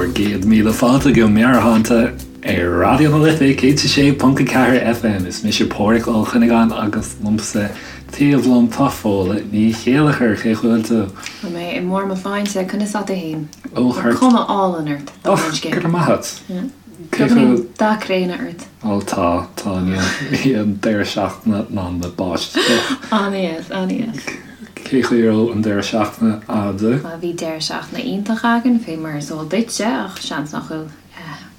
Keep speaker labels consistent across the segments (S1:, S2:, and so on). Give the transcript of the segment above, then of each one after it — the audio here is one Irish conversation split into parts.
S1: bhur gcéad míle fáilte go Meabhairshláinte ar Raidió na Life 106.4 FM. Is mise Pádhraic Ó Cuinneagáin agus liomsa taobh liom tá Fódhla Ní Chéilleachair. Cén chaoi a bhfuil tú?
S2: Tá mé i mbarr mo shláinte, conas tá tú fhéin?
S1: Ó,
S2: Tá cuma álainn ort,
S1: Ó, go raibh maith agat.
S2: Cé chomh. Beagáinín dath gréine ort.
S1: Ó tá, tá, níl an deireadh seachtaine ná na báisteach.
S2: An-dheas, an-dheas.
S1: Cén chaoi a raibh an deireadh seachtaine a'd?
S2: Bhuel bhí deireadh seachtaine iontach againn, fé mar is eol duitse, ach seans nach bhfuil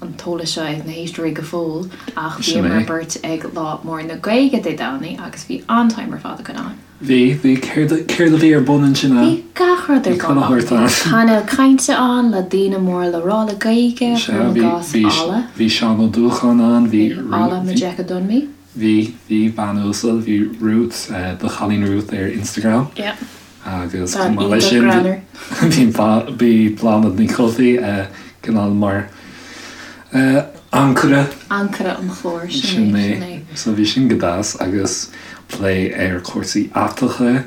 S2: an t-eolas seo ag na héisteoirí go fóill, ach bhíomar beirt ag Lá Mór na Gaeilge Dé Domhnaigh agus bhí an-time ar fad againn ann.
S1: Bhí, bhí. Céard, céard a bhí ar bun ansin
S2: a? Bhí gach rud ar bun ann. Bhí painéal cainte ann le daoine mór le rá le Gaeilge, cuirim i gcás, Ola.
S1: Bhí Seán Ó Dúlacháin ann,
S2: bhí. Bhí Ola Majekodunmi.
S1: Bhí, bhí, bean uasal, bhí Ruth, do chailín Ruth ar Instagram.
S2: Yeah.
S1: Agus chomh maith leis sin, bhí, bhí Bláthnaid Ní Chofaigh, cineál mar
S2: ancaire. Ancaire an chláir,
S1: sin é, sin é. So bhí sin go deas agus plé ar chúrsaí aiteacha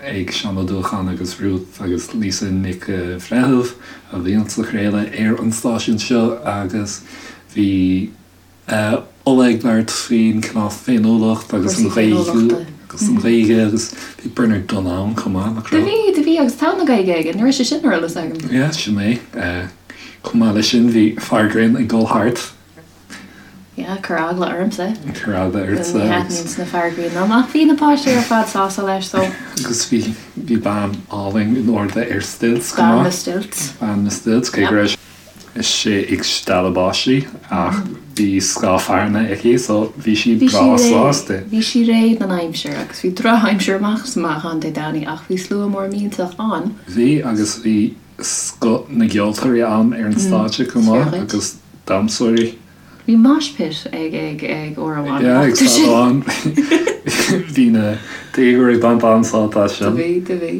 S1: ag Seán Ó Dúlacháin agus Ruth agus Lisa Nic Bhreithimh a bhíonn sa chraoladh ar an stáisiún seo agus bhí Ola ag labhairt faoin cineál féiniúlacht agus an Ghaeilge agus an Ghaeilge agus bhí Bernard Dunne ann chomh maith,
S2: nach raibh? Do bhí, do bhí agus togha na Gaeilge aige, ní raibh sé sin ar eolas agam.
S1: Yeah, sin é. Chomh maith leis sin bhí fear grinn ag dul thart.
S2: Yeah, chuir eagla ormsa.
S1: Chuir eagla ortsa.
S2: Ní thaitníonn na fear grinn liom ach bhí na páistí ar fad sásta leis so.
S1: Agus bhí, bhí bean álainn in airde ar stilts chomh maith.
S2: Bean na stilts.
S1: Bean na stilts, cé go raibh sí ag stealladh báistí ach bhí scáth fearthainne aici so bhí sí breá sásta.
S2: Bhí sí réidh don aimsir agus bhí drochaimsir amach is amach ann Dé Domhnaigh ach bhí slua mór millteach ann.
S1: Bhí agus bhí scoth na gceoltóirí ann ar an stáitse chomh maith agus damhsóirí.
S2: Bhí mosh pit ag ag ag uair amháin.
S1: Yeah ag staid amháin. Bhí na déagóirí ag baint an-sult as
S2: sin. Do bhí, do bhí.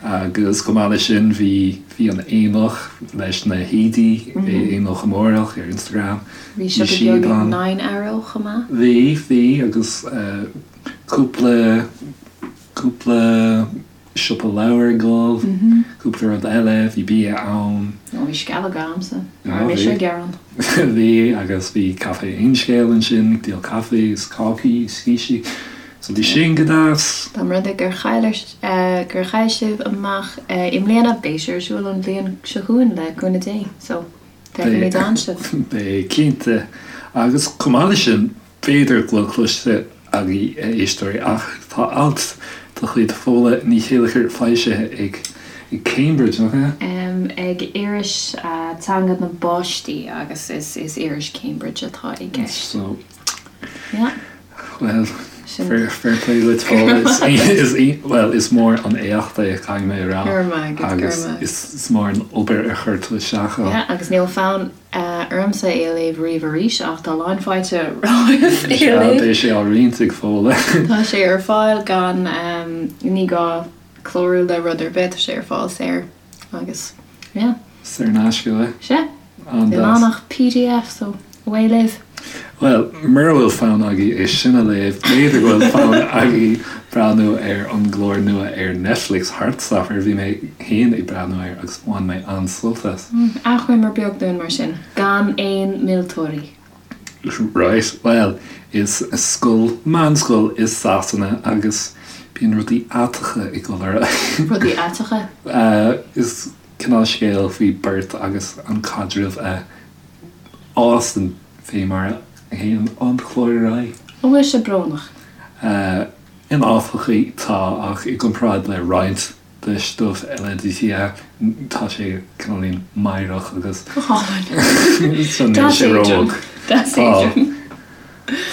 S1: Agus chomh maith leis sin bhí bhí an Aonach leis na haoidí, Aonach Amárach ar Instagram.
S2: Bhí siopa beag ag Nine Arrow chomh maith.
S1: Bhí, bhí agus cúpla, cúpla siopa leabhar ag dul, cúpla rud eile, bhí bia ann.
S2: Ó bhí sceallóga a'msa, ní raibh mise ag gearán.
S1: Bhí agus bhí Caife Aon Scéal ansin ag díol caife is cácaí is cístí. So bhí sin go deas.
S2: Dá mba rud é gur chaill gur chaill sibh amach i mbliana, beidh sé ar siúl an bhliain seo chugainn le cúnamh Dé. So, feicfimid ann sibh.
S1: Beidh, cinnte. Agus chomh maith leis sin, b'fhéidir go bhfuil cloiste agaibh, a éisteoirí, ach tá alt de chuid Fódhla Ní Chéilleachair foilsithe ag Cambridge, nach
S2: ea? Ag iris teanga na bpáistí agus is iris Cambridge atá i gceist.
S1: So, Yeah. Bhuel, fair play duit Fódhla. Is, bhuel, is mór an éacht é, caithfidh mé a rá.
S2: Go raibh maith agat, go raibh
S1: maith. Agus is mór an obair a chuir tú isteach
S2: ann. Yeah, agus níl fonn ormsa é a léamh riamh arís ach tá lán fáilte romhaibh
S1: é a léamh. Beidh sé á roinnt ag Fódhla.
S2: Tá sé ar fáil gan, ní gá clárú le rud ar bith, tá sé ar fáil saor agus, yeah.
S1: Saor in aisce,
S2: eh? Sea. An-deas. Níl ann ach pdf so away libh.
S1: Bhuel, mura bhfuil fonn agaibh é sin a léamh, b'fhéidir go bhfuil fonn agaibh breathnú ar an gclár nua ar Netflix, Heartstopper. Bhí mé féin ag breathnú air agus bhain mé an-sult as.
S2: Achoimre beag dúinn mar sin, gan aon mhillteoirí.
S1: Right, bhuel, is scoil, meánscoil i Sasana agus bíonn rudaí aiteacha ag dul ar
S2: aghaidh. Rudaí aiteacha?
S1: Is cineál scéal faoi beirt agus an caidreamh a fhásann fé mar a théann an clár ar aghaidh.
S2: An bhfuil sé brónach?
S1: In áiteachaí tá, ach i gcomparáid le roinnt de stuif eile yeah, tá sé cineáilín meidhreach agus
S2: Go hálainn.
S1: so níl
S2: sé
S1: Deas éadrom.
S2: róg. Deas
S1: Tá.
S2: éadrom.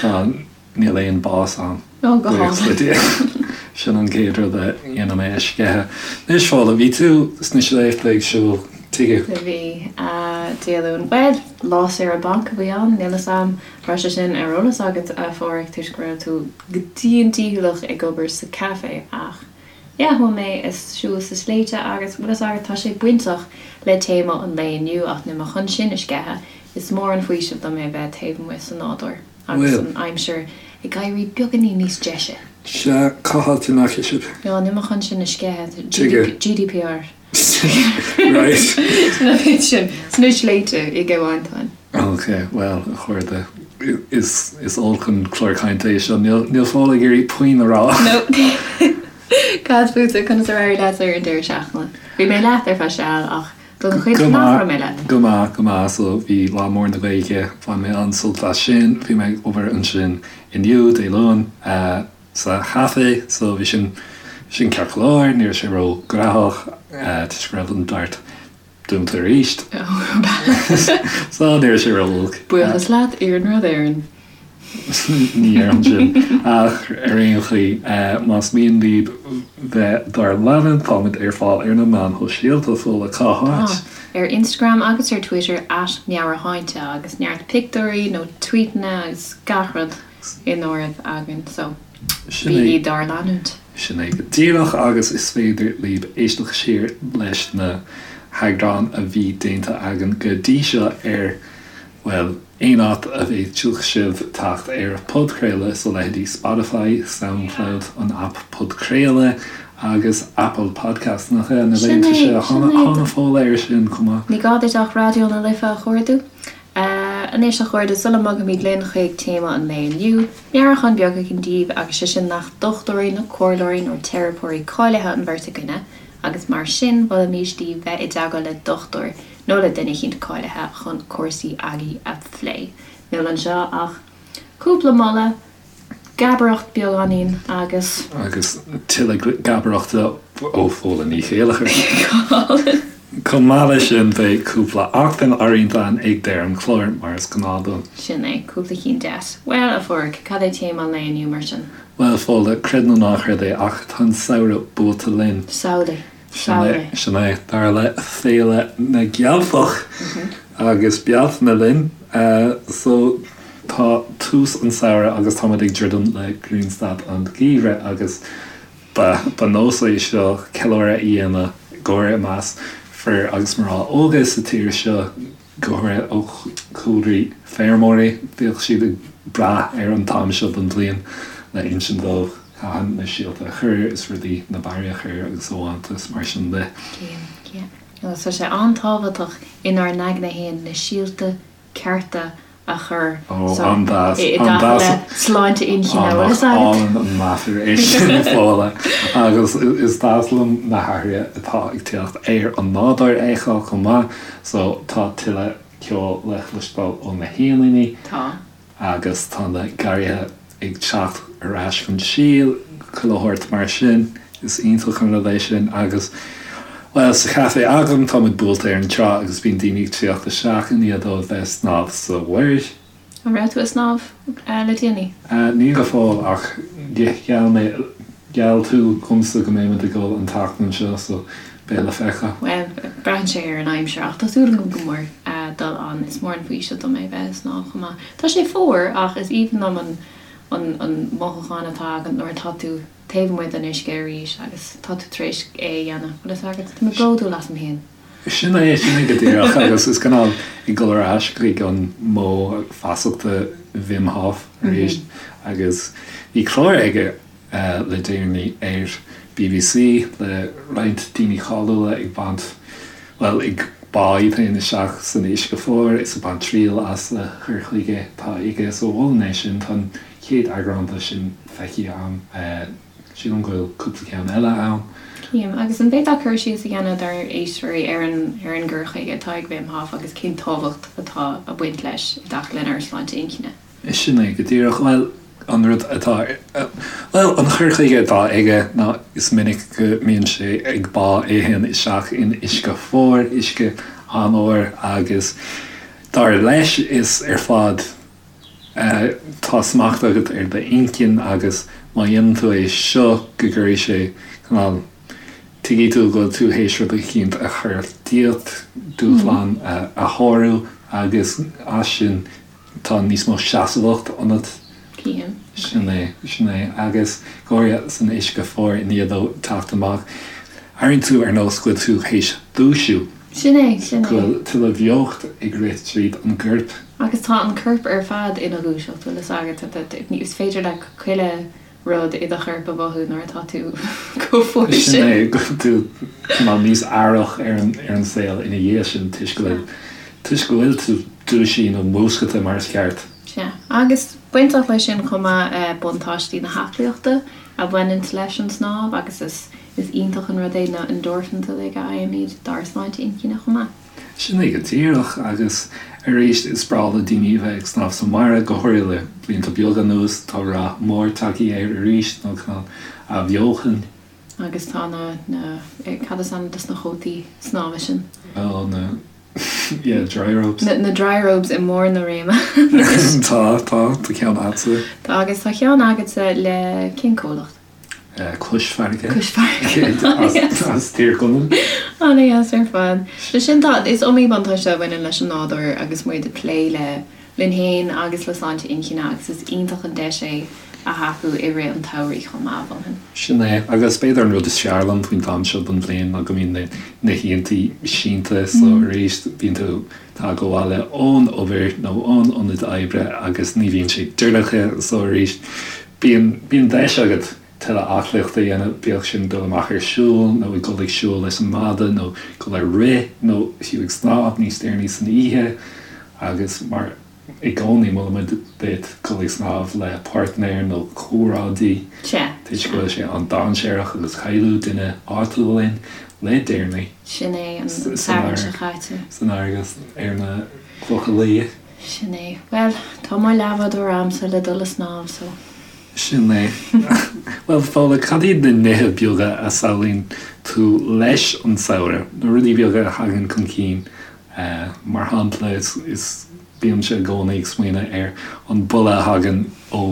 S1: Tá. Níl aon bás ann.
S2: Ó, go hálainn.
S1: Sin an chéad rud a dhéanfaidh mé a sceitheadh. Anois, Fódhla, bhí tú sna sléibhte ag siúl tuige?
S2: Bhí, Dé Luain. Bhuel, lá saoire bainc a bhí ann, níl 'fhios a'm raibh sé sin ar eolas agat, a Pháraic, toisc go raibh tú go dian dícheallach ag obair sa café ach yeah, chuaigh mé ag siúl sna sléibhte agus, bhfuil 'fhios agat, tá sé bainteach le téama an lae inniu ach níl mé chun sin a sceitheadh, is mór an faoiseamh dom é bheith taobh amuigh sa nádúr. Agus an aimsir ag éirí beagáinín níos deise.
S1: Sea, cá háit a ndeachaigh sibh?
S2: Ó, níl mé chun sin a sceitheadh.
S1: Tuige?
S2: GDPR.
S1: Right.
S2: Sin an méid sin. Sna sléibhte i gCill Mhantáin.
S1: Ok, bhuel, a chairde, is is olc an clár cainte é seo. Níl níl Fódhla ag iarraidh puinn a rá.
S2: No. Cad fútsa, conas ar éirigh leat ar an deireadh seachtaine? Bhí mé leat ar feadh seal ach don chuid
S1: Go
S2: nach
S1: maith,
S2: raibh mé leat.
S1: go maith, go maith. So bhí Lá Mór na Gaeilge, bhain mé an-sult as sin. Bhí mé ag obair ansin inniu, Dé Luain. sa chaife so bhí sin sin ceart go leor, ní raibh sé ró ghnóthach toisc go raibh an DART dúnta arís so ní raibh sé ró olc.
S2: Buíochas leat Iarnród Éireann.
S1: Ní dhéarfainn sin ach ar aon chaoi más mian libh bheith dár leanúint táimid ar fáil ar na meáin shóisialta Fódhla cá háit?
S2: Ar Instagram agus ar Twitter at Meabhairshláinte agus neart pictiúirí nó tweetanna agus gach rud. in áireamh againn so bígí dár leanúint.
S1: Sin é go díreach agus is féidir libh éisteacht siar leis na heagráin a bhí déanta againn go dtí seo ar, bhuel, aon áit a bhféadfadh sibh teacht ar podchraoladh, so leithéidí Spotify, Soundcloud, an aip podchraoladh agus Apple Podcasts, nach ea? Na
S2: Sin
S1: laethanta
S2: é,
S1: seo,
S2: sin é.
S1: thána Fódhla air sin chomh maith.
S2: Ní gá duit ach Raidió na Life a chuardú. Anois, a chairde, sula mbogaimid linn chuig téama an lae inniu, meabhrúchán beag againn daoibh, agus sé sin nach dochtúirí nó comhairleoirí nó teiripeoirí cáilithe an bheirt againne, agus mar sin, mholfaimis daoibh bheith i dteagmháil le dochtúir nó le duine eicínt cáilithe chun cúrsaí agaibh a phlé. Níl anseo ach cúpla moladh. Gabaireacht beagáinín agus.
S1: Agus tuilleadh gabaireachta ó Fódhla Ní Chéilleachair. Chomh maith leis sin beidh cúpla acmhainn á roinnt againn ag deireadh an chláir, mar is gnáth dúinn.
S2: Sin é, cúpla cinn deas. Bhuel, a Phádraig, cad é téama an lae inniu mar sin?
S1: Bhuel, Fódhla, creid nó ná creid é, ach tá an samhradh buailte linn.
S2: Samhlaigh.
S1: Sin é, dar le Féile na gCeilteach agus Bealtaine linn. So tá tús an samhradh agus táimid ag druidim le grianstad an gheimhridh agus ba ba nós é seo ceiliúradh a dhéanamh go háirithe i measc fir agus mná óga sa tír seo. go háirithe ó chúlraí feirmeoirí, bhíodh siad ag brath ar an t-am seo den bhliain le insint dóibh cathain na síolta a chur is rudaí, na barraí a chur agus amháinte is mar sin de.
S2: Yeah. Agus tá sé an-tábhachtach inár n-aigne fhéin na síolta cearta a chur
S1: Ó, so an-deas,
S2: i dtaca
S1: an-deas.
S2: le sláinte inchinne, bhfuil fhios agat?
S1: Álainn an meafar é sin, Fódhla. Agus is deas liom na hathruithe atá ag teacht ar an nádúr a fheiceáil chomh maith. So, tá tuilleadh ceoil le cloisteáil ó na héiníní.
S2: Tá.
S1: Agus tá na garraithe ag teacht ar ais chun síl, chuile shórt mar sin. Is iontach an rud é sin. Agus, bhuel, sa chaife agam, tá muid buailte ar an trá agus bíonn daoine ag tíocht isteach i ndiaidh dóibh bheith ag snámh sa mhuir.
S2: An raibh tú ag snámh le déanaí?
S1: Ní go fóill ach gheall mé, gheall tú dhomsa go mbeidh muid ag dul an tseachtain seo so beidh le feiceáil.
S2: Bhuel, braitheann sé ar an aimsir ach tá súil agam go mór dul ann. Is mór an faoiseamh dom é bheith ag snámh chomh maith. Tá sé fuar ach is aoibhinn liom an an an mothúchán atá agat nuair atá tú taobh amuigh den uisce arís agus tá tú tar éis é a dhéanamh. Bhfuil fhios agat? Tá mé bródúil asam féin.
S1: Sin é, sin é go díreach agus is cineál ag dul ar ais chuig an modh feasachta Wim Hof arís agus bhí clár aige le déanaí ar bbc le roinnt daoine cáiliúla ag baint, bhuel, ag bá iad féin isteach san uisce fuar is ag baint triail as a chur chuige atá aige so mholfainn é sin, tá an chéad eagrán de sin feicthe agam. Sílim go bhfuil cúpla ceann eile ann.
S2: Cím. Agus an bhféadfá cur síos a dhéanamh dár éisteoirí ar an ar an gcur chuige atá ag Wim Hof agus cén tábhacht atá ag baint leis i dtaca lenár sláinte inchinne?
S1: Sin é go díreach. Bhuel, an rud atá, bhuel, an chur chuige atá aige ná is minic go mbíonn sé ag bá é féin isteach in uisce fuar, uisce an-fhuar agus dar leis is ar fad Tá smacht agat ar d'inchinn agus má dhéanann tú é seo go gcuirfidh sé cineál, tuigfidh tú go bhfuil tú théis rud eicínt a chur díot, dúshlán a shárú agus as sin tá níos mó seasmhacht ionat.
S2: Cím.
S1: Sin é, sin é. Agus go háirithe san uisce fuar i ndiaidh dó teacht amach, airíonn tú ar nós go bhfuil tú théis dúisiú.
S2: Sin é, sin
S1: é. Go bhfuil tuilleadh beocht ag rith tríd an gcorp.
S2: Agus tá an corp ar fad ina dhúiseacht, bhfuil fhios agat, is féidir le chuile. rud i do chorp a mhothú nuair atá tú chomh fuar
S1: Sin
S2: sin.
S1: é, go bhfuil tú cineál níos aireach ar an ar an saol ina dhiaidh sin toisc go bhfuil toisc go bhfuil tú dúisithe nó múscailte mar is ceart.
S2: Sea. Agus bainteach leis sin chomh maith buntáistí na haclaíochta a bhaineanns leis an snámh agus is is iontach an rud é na endorphins uilig a fhaighimid dár sláinte inchinne chomh maith.
S1: Sin é go díreach, agus arís is breá le daoine a bheith ag snámh sa mhuir, go háirithe le blianta beaga anuas, tá rath mór tagtha air arís, nó cineál athbheochan.
S2: Agus tá na, na, cad is ainm dos na cótaí snámha sin?
S1: Ó, na, yeah, dry robes.
S2: Na, na dry robes i mbarr na réime anois.
S1: Tá, tá, tá ceann agatsa.
S2: Tá, agus tá ceann agatsa le cén comhlacht?
S1: Cois Farraige.
S2: Cois Farraige.
S1: As Tír Chonaill.
S2: An-dheas ar fad. So sin tá, is iomaí buntáiste a bhaineann leis an nádúr agus muid ag plé le linn féin agus le sláinte inchinne agus is iontach an deis é a thapú i rith an tsamhraidh chomh maith, mholfainn.
S1: Sin é. Agus b'fhéidir an rud is fearr liom faoin t-am seo den bhliain ná go mbíonn na na hoícheantaí sínte so arís bíonn tú tagtha abhaile ón obair nó ón ionad oibre agus ní bhíonn sé dorcha so arís Bíonn, bíonn deis agat tuilleadh aclaíochta a dhéanamh, bíodh sin dul amach ar siúl nó ag dul ag siúl leis an mada nó dul ar rith nó fiú ag snámh níos deireanaí san oíche agus mar i gcónaí molaimid duit dul ag snámh le páirtnéir nó comrádaí
S2: Sea,
S1: toisc go bhfuil sé an-dainséarach agus cailleadh duine áitiúil linn le deireanaí
S2: Sin é, an Satharn seo caite.
S1: san fharraige ar na Clocha Liath.
S2: Sin é. Bhuel, tá mo leathbhádóir a'msa le dul a snámh, so.
S1: Sin é. Bhuel, Fódhla, cad iad na nithe beaga a samhlaíonn tú leis an samhradh? Na rudaí beaga a thagann chun cinn. Mar shampla, is bímse i gcónaí ag smaoineamh ar an boladh a thagann ó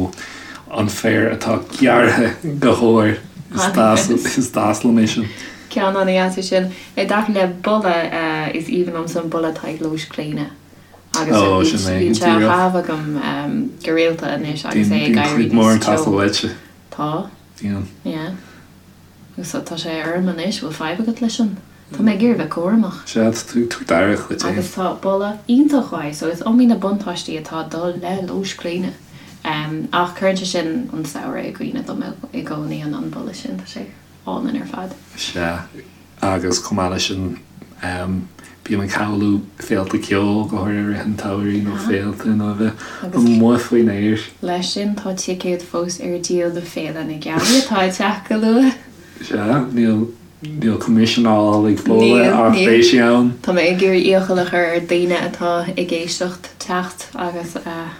S1: an féar atá gearrtha go hór. Is deas liom é sin.
S2: Ceann an-dheas é sin. I dtaca le boladh, is aoibhinn liomsa an boladh atá ag lóis gréine. Agus
S1: Ó, sin é,
S2: bíonn sé á
S1: díreach.
S2: chaitheamh agam go rialta anois agus é
S1: Bíonn
S2: ag éirí
S1: cuid mhór
S2: níos
S1: ag teastáil
S2: teo.
S1: uaitse.
S2: Tá.
S1: Bíonn.
S2: Yeah. Agus tá sé orm anois, bhfuil fadhb agat leis sin? Tá mé ag iarraidh bheith cúramach.
S1: Sea, tá tú ag tabhairt aire dhuit féin.
S2: Agus tá boladh iontach uaidh, so is iomaí na buntáistí atá ag dul le lóis gréine. Ach cuireann sé sin an samhradh i gcuimhne dom i gcónaí, an boladh sin, tá sé álainn ar fad.
S1: Sea. Agus chomh maith leis sin, bím ag samhlú féilte ceoil, go háirithe i rith an tsamhraidh, nó féilte nó a bheith amuigh faoin aer.
S2: Leis sin, tá ticéid fós ar díol do Féile na Gealaí atá ag teacht go luath.
S1: Sea, níl, níl coimisiún á fháil ag Fódhla ach beidh sí ann.
S2: Tá mé ag iarraidh iachall a chur ar daoine atá ag éisteacht teacht agus a.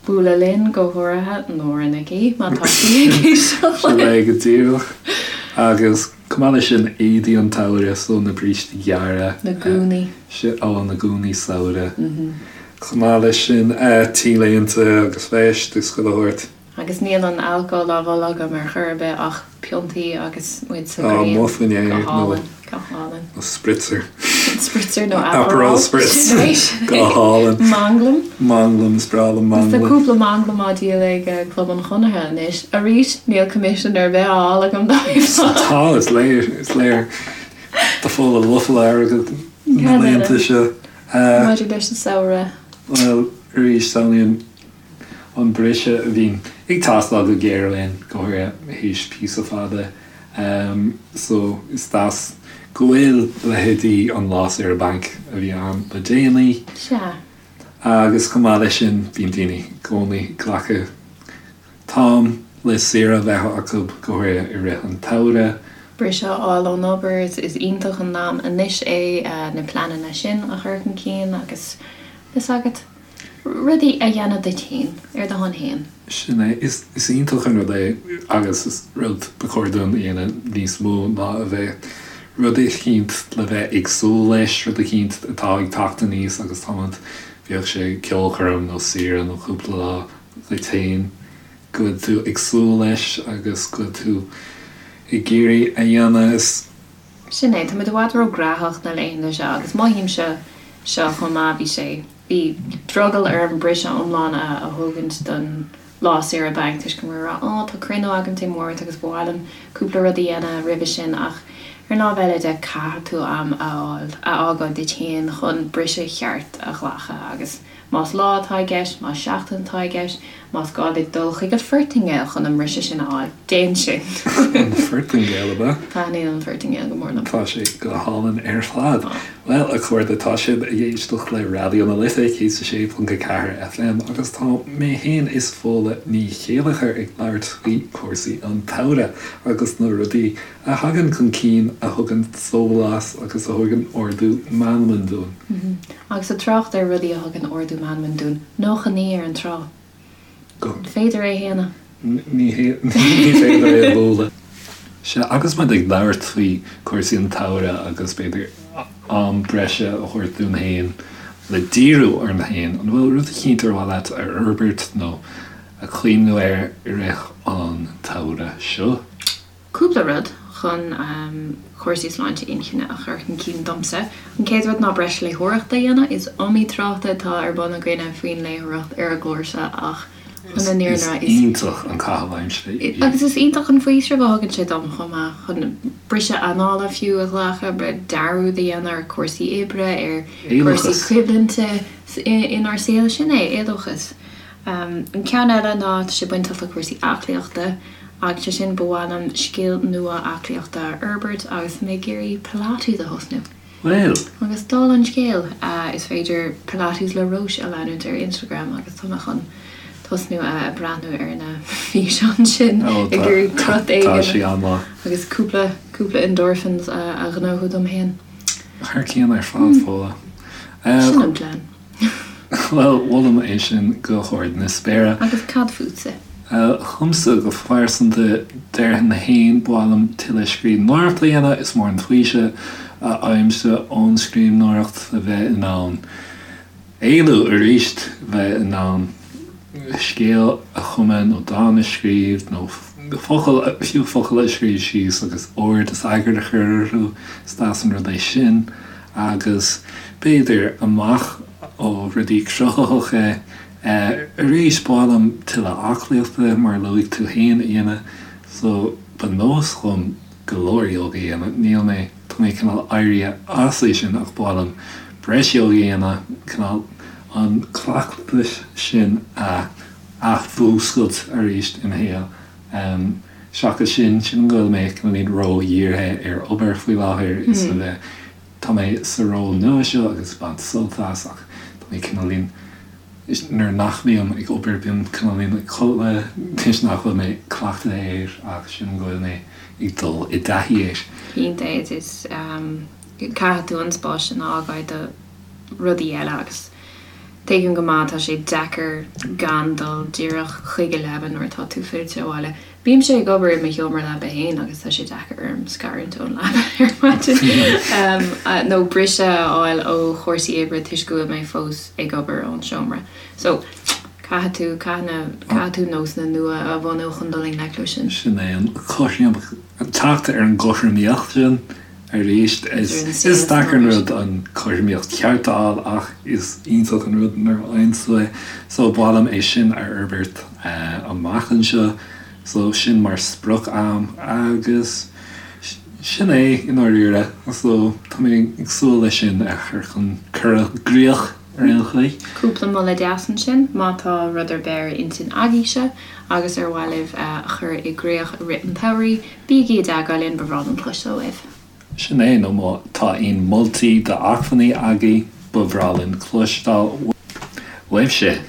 S2: Bualadh linn, go háirithe Nóra Nic Aoidh, má tá sí ag éisteacht
S1: Sin
S2: linn.
S1: é go díreach. Agus chomh maith leis sin, éadaí an tsamhraidh, so na brístí gearra.
S2: Na gúnaí.
S1: Ó, na gúnaí samhraidh. Chomh maith leis sin, T-léinte agus veist agus chuile shórt.
S2: Agus níl an alcól á mholadh agam ar chor ar bith ach piontaí agus muid sa
S1: Á,
S2: ghrian.
S1: amuigh faoin aer
S2: Go
S1: nó
S2: hálainn, go hálainn.
S1: nó spritzer.
S2: Spritzer nó
S1: Aperol
S2: Aperol.
S1: Spritz.
S2: Sin é, sin é.
S1: Go hálainn.
S2: Manglam.
S1: Manglam, is breá liom
S2: Agus tá
S1: manglam.
S2: cúpla manglam á díol ag Club an Chonartha anois. Arís, níl coimisiún ar bith á fháil agam dóibh.
S1: Tá, is léir, is léir. Tá Fódhla lofa le airgead na
S2: Cad eile?
S1: laethanta seo.
S2: Maidir leis an samhradh.
S1: Bhuel, arís, samhlaím an briseadh a bhíonn ag teastáil go géar uainn, go háirithe théis píosa fada. So, is deas go bhfuil leithéidí an Lá Saoire Bainc a bhí ann le déanaí.
S2: Sea.
S1: Agus chomh maith leis sin, bíonn daoine i gcónaí ag glacadh t-am le saoire a bheith acu, go háirithe i rith an tsamhraidh.
S2: Briseadh a fháil ón obair, is iontach an am anois é na pleananna sin a chur chun cinn agus, fhios agat. Rudaí a dhéanamh duit féin, ar do shon féin.
S1: Sin é. Is iontach an rud é agus is rud ba chóir dúinn a dhéanamh níos mó ná a bheith rud eicínt le bheith ag súil leis, rud eicínt atá ag teacht aníos agus táimid, bíodh sé ceolchoirm nó saoire nó cúpla lá duit féin, go bhfuil tú ag súil leis agus go bhfuil tú ag iarraidh a dhéanamh. Is.
S2: Sin é. Táimid i bhfad ró-ghnóthach na laethanta seo agus mothaímse seo chomh maith, bhí sé. Bhí drogall orm briseadh iomlán a thógaint don lá saoire bainc toisc go raibh mé ag rá 'Ó, tá cruinniú agam Dé Máirt agus ba mhaith liom cúpla rud a dhéanamh roimhe sin' ach ar an lámh eile de caithfidh tú am a fháil, a fhágáil duit féin chun briseadh cheart a ghlacadh agus. Más lá atá i gceist, más seachtain atá i gceist, más gá duit dul chuig an Phortaingéil chun an mbriseadh sin a fháil, déan sin.
S1: An Phortaingéil, ab ea?
S2: Taitníonn an Phortaingéil go mór liom.
S1: Tá sé go hálainn ar fad. Bhuel, a chairde, tá sibh ag éisteacht le Raidió na Life 106.4 FM agus tá mé féin is Fódhla Ní Chéilleachair ag labhairt faoi chúrsaí an tsamhraidh agus na rudaí a thagann chun cinn a thugann sólás agus a thugann ardú meanman dúinn.
S2: Agus ag trácht ar rudaí a thugann ardú meanman dúinn, 99 ar an trá. An féidir é a shéanadh?
S1: Ní féidir é a bhualadh. Sea, agus muid ag labhairt faoi chúrsaí an tsamhraidh agus b'fhéidir am breise a thabhairt dúinn féin le díriú orainn féin, an bhfuil rud eicínt ar mhaith leat a fhorbairt nó a chuimhniú air i rith an tsamhraidh seo?
S2: Cúpla rud chun cúrsaí sláinte inchinne a chur chun cinn domsa. An chéad rud ná breis léitheoireachta a dhéanamh. Is iomaí trácht atá ar bun againne faoin léitheoireacht ar an gclár seo ach
S1: chun an fhírinne a rá is. Is iontach an caitheamh aimsire
S2: í. Agus is iontach an faoiseamh a thugann sé dom chomh maith, chun briseadh anála fiú a ghlacadh, dearúd a dhéanamh ar chúrsaí oibre, ar chúrsaí coimhlinte inár saol. Sin é, éadóchas. An ceann eile ná, tá sé bainteach le cúrsaí aclaíochta agus sé sin, ba mhaith liom scil nua aclaíochta a fhorbairt agus tá mé ag iarraidh Pilates a thosnú.
S1: Bhuel!
S2: Agus dála an scéil, is féidir Pilates le Róis a leanúint ar Instagram agus tá mé chun tosnú ag breathnú ar na físeáin sin ag iarraidh crot éigin agus cúpla, cúpla endorphins a ghnóthú dom féin.
S1: Thar cionn ar fad, Fódhla.
S2: Sin an plean.
S1: Bhuel, molaim é sin go hard na spéire.
S2: Agus cad fútsa?
S1: Dhomsa go pearsanta, déarfainn féin, ba mhaith liom tuilleadh scríbhneoireachta a dhéanamh. Is mór an faoiseamh a fhaighimse ón scríbhneoireacht a bheith in ann éalú arís, bheith in ann scéal a chumadh nó dán a scríobh nó focal, fiú focal a scríobh síos agus ord is eagar a chur orthu. Is deas an rud é sin. Agus b'fhéidir, amach ó rudaí cruthaitheacha, arís, ba mhaith liom tuilleadh aclaíochta, mar a luaigh tú féin, a dhéanamh. So, ba nós liom go leor ióga a dhéanamh. Níl mé, tá mé cineál éirithe as é sin ach ba mhaith liom breis ióga a dhéanamh, cineál an cleachtas sin a athmhúscailt arís i mo shaol. Seachas sin, sílim go bhfuil mé cineáilín ró-dhírithe ar obair faoi láthair is a bheith, tá mé sa ról nua seo agus ag baint sult as ach tá mé cineáilín, nuair nach mbím ag obair bím cineáilín ag codladh toisc nach bhfuil mé cleachtaithe air ach sílim go bhfuil mé ag dul i dtaithí air.
S2: Cinnte, is caithfidh tú an spás sin a fhágáil do rudaí eile agus Tuigim go maith, tá sé deacair gan dul díreach chuig an leaba nuair atá tú fillte abhaile. Bímse ag obair i mo sheomra leapa féin agus tá sé deacair orm scarúint ón leaba ar maidin nó briseadh a fháil ó chúrsaí oibre toisc go bhfuil mé fós ag obair ón seomra. So, caithfidh tú, caithfidh na, caithfidh tú nósanna nua a bhunú chun dul i ngleic leo sin.
S1: Sin é an cothrom, teacht ar an gcothromaíocht sin. Arís, is deacair an rud an chothromaíocht cheart a fháil ach is iontach an rud nuair a fhaigheann tú é. So ba mhaith liom é sin a fhorbairt amach anseo. So sin mar sprioc a'm agus sin é i ndáiríre. So tá mé ag súil leis sin a chur chun cur i gcrích ar aon chaoi.
S2: Cúpla moladh deas ansin má tá rud ar bith ar intinn agaibhse agus ar mhaith libh a chur i gcrích i rith an tsamhraidh. Bígí i dteagmháil linn, ba bhreá linn cloisteáil uaibh.
S1: Sin é, nó má tá aon moltaí d'acmhainní agaibh, ba bhreá linn cloisteáil uaibhse.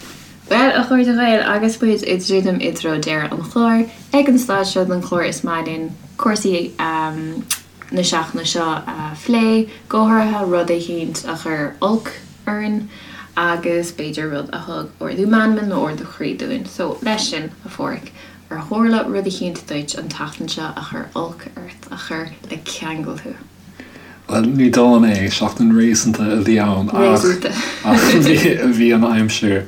S2: Bhuel, a chairde Ghaeil, agus muid ag druidim i dtreo deireadh an chláir, ag an staid seo den chlár is maith linn cúrsaí na seachtaine seo a phlé, go háirithe rud eicínt a chuir olc orainn agus b'fhéidir rud a thug ardú meanman nó ardú croí dúinn. So, leis sin, a Pháraic, Ar tharla rud eicínt duit an tseachtain seo a chuir olc ort, a chuir le ceangal thú?
S1: Bhuel, ní dóigh liom é. Seachtain réasúnta a bhí ann ach bhí an aimsir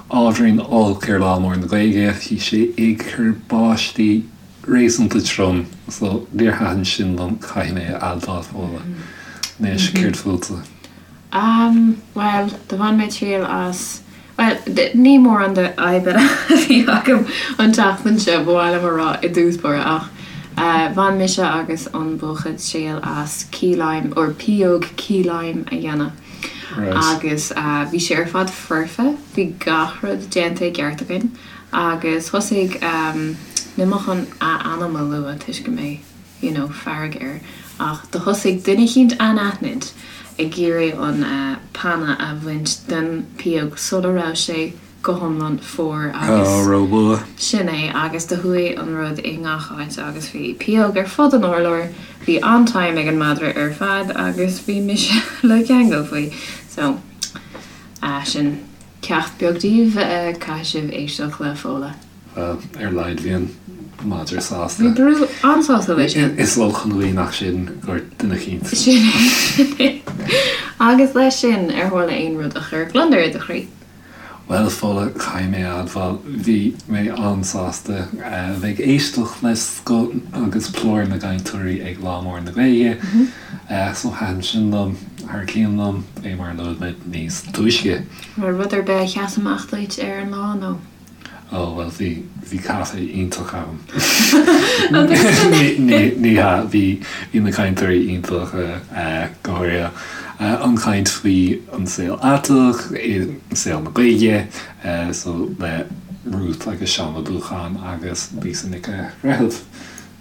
S1: ábhairín olc ar Lá Mór na Gaeilge. Bhí sé ag cur báistí réasúnta trom so níor thaitin sin liom, caithfidh mé a admháil, Fódhla. Anois, céard fútsa?
S2: Bhuel, do bhain mé triail as Bhuel, ní mórán de fhadhbanna a bhí agam an tseachtain seo, ba mhaith liom a rá i dtús báire, ach bhain mise agus an buachaill triail as key lime, or pióg key lime a dhéanamh. Agus bhí sé ar fad foirfe, bhí gach rud déanta i gceart againn agus thosaigh, níl mé chun a ainm a lua toisc go mbeidh, you know, fearg air, ach do thosaigh duine eicínt anaithnid ag iarraidh an panna a bhaint den pióg sula raibh sé go hiomlán fuar agus.
S1: Ó, róluath.
S2: Sin é, agus do chuaigh an rud i ngach áit agus bhí pióg ar fud an urláir, bhí an-time ag an madra ar fad agus bhí mise le ceangal faoi. So, sin ceacht beag daoibh, caithfidh sibh éisteacht le Fódhla.
S1: Bhuel, ar a laghad bhí an madra sásta.
S2: Bhí Brú an-sásta leis
S1: sin. Is olc an ghaoth nach sin gur duine eicínt.
S2: Sin é, sin é. Agus leis sin, ar tharla aon rud a chuir gliondar i do chroí?
S1: Bhuel, a Fódhla, caithfidh mé a admháil, bhí mé an-sásta a bheith ag éisteacht le scoth agus plúr na gcainteoirí ag Lá Mór na Gaeilge. So thaitin sin liom, thar cionn liom, fé mar a luaigh muid níos túisce.
S2: Raibh rud ar bith a sheas amach duit ar an lá, nó?
S1: Ó, bhuel, bhí, bhí caife iontach ann. Ní hea, bhí, bhí na cainteoirí iontach, go háirithe an chaint faoi an saol aiteach, saol na Gaeilge, so le Ruth agus Seán Ó Dúcháin agus Lisa Nic a' Bhreithimh.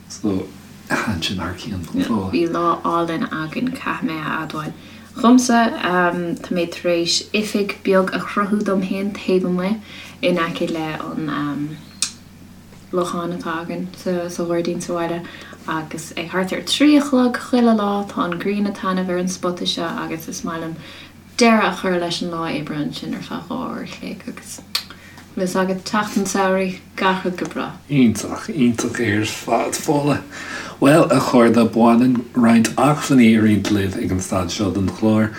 S1: So, thaitin sin thar cionn.
S2: Bhí lá álainn againn, caithfidh mé a admháil. Dhomsa, tá mé tar éis oifig beag a chruthú dom féin taobh amuigh in aice le an lochán atá againn sa ghairdín sa bhaile agus ag thart ar 3 a chlog chuile lá tá an ghrian ag taitneamh ar an spota seo agus is maith liom deireadh a chur leis an lá oibre ansin ar feadh 2 uair a chloig agus bhfuil fhios agat, teacht an tsamhraidh, gach rud go breá.
S1: Iontach, iontach ar fad, Fódhla. Bhuel, a chairde, baineann roinnt acmhainní a roinnt libh ag an staid seo den chlár,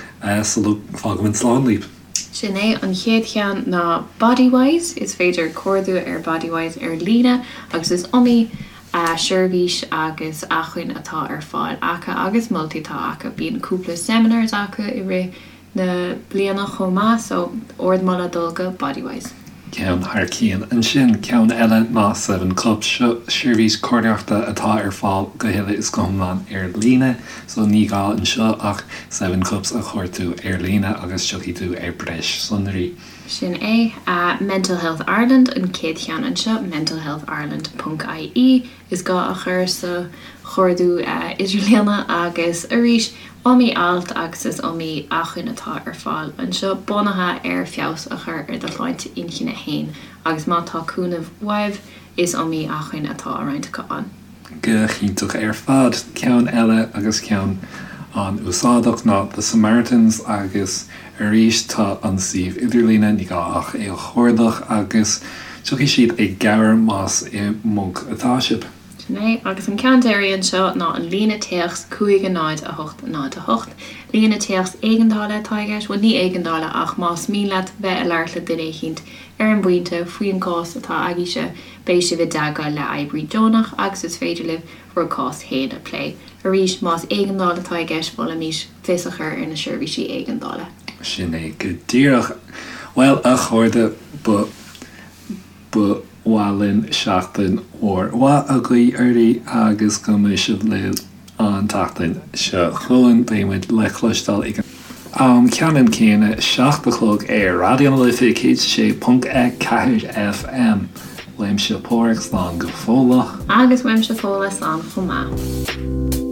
S1: sula bhfágaimid slán libh.
S2: Sin é, an chéad cheann ná Bodywhys, is féidir cuardú ar Bodywhys ar líne agus is iomaí seirbhís agus acmhainn atá ar fáil acu agus moltaí atá acu. Bíonn cúpla seminars acu i rith na bliana chomh maith so ardmholadh dul go Bodywhys.
S1: Ceann thar cionn. Ansin ceann eile ná Seven Cups. Seo seirbhís comhairleoireachta atá ar fáil go huile is go hiomlán ar líne so ní gá anseo ach Seven Cups a chuartú ar líne agus tiocfaidh tú ar breis sonraí.
S2: Sin é. Mental Health Ireland an chéad cheann anseo, mentalhealthireland ponc ie is gá a chur sa chuardú idirlíona agus arís iomaí alt agus is iomaí acmhainn atá ar fáil anseo bunaithe ar feabhas a chur ar do shláinte inchinne fhéin agus má tá cúnamh uaibh is iomaí acmhainn atá á roinnt acu ann.
S1: Go hiontach ar fad. Ceann eile agus ceann an-úsáideach ná The Samaritans agus arís tá an suíomh idirlíne, ní gá ach é a chuardach agus tiocfaidh siad i gcabhair más i mponc atá sibh.
S2: Sin é. Agus an ceann deiridh anseo ná an líne téacs 5 0 8 0 8. Líne téacs éigeandála atá i gceist, bhuel ní éigeandála ach más mian leat bheith ag labhairt le duine eicínt ar an bpointe faoin gcás atá agaibhse, Beidh sibh i dteagmháil le oibrí deonach agus is féidir libh bhur gcás féin a phlé. Arís, más éigeandáil atá i gceist, mholfaimis fios a chur ar na seirbhísí éigeandála.
S1: Sin é go díreach. Bhuel, a chairde, ba ba mhaith linn seachtain mhór mhaith a ghuí oraibh agus go mbeidh sibh linn An tseachtain seo chugainn beidh muid le cloisteáil ag an am ceannann céanna, 7 a chlog ar Raidió na Life 106.4 FM. Uaimse Páraic, slán go fóilleach.
S2: Agus uaimse Fódhla, slán chomh maith.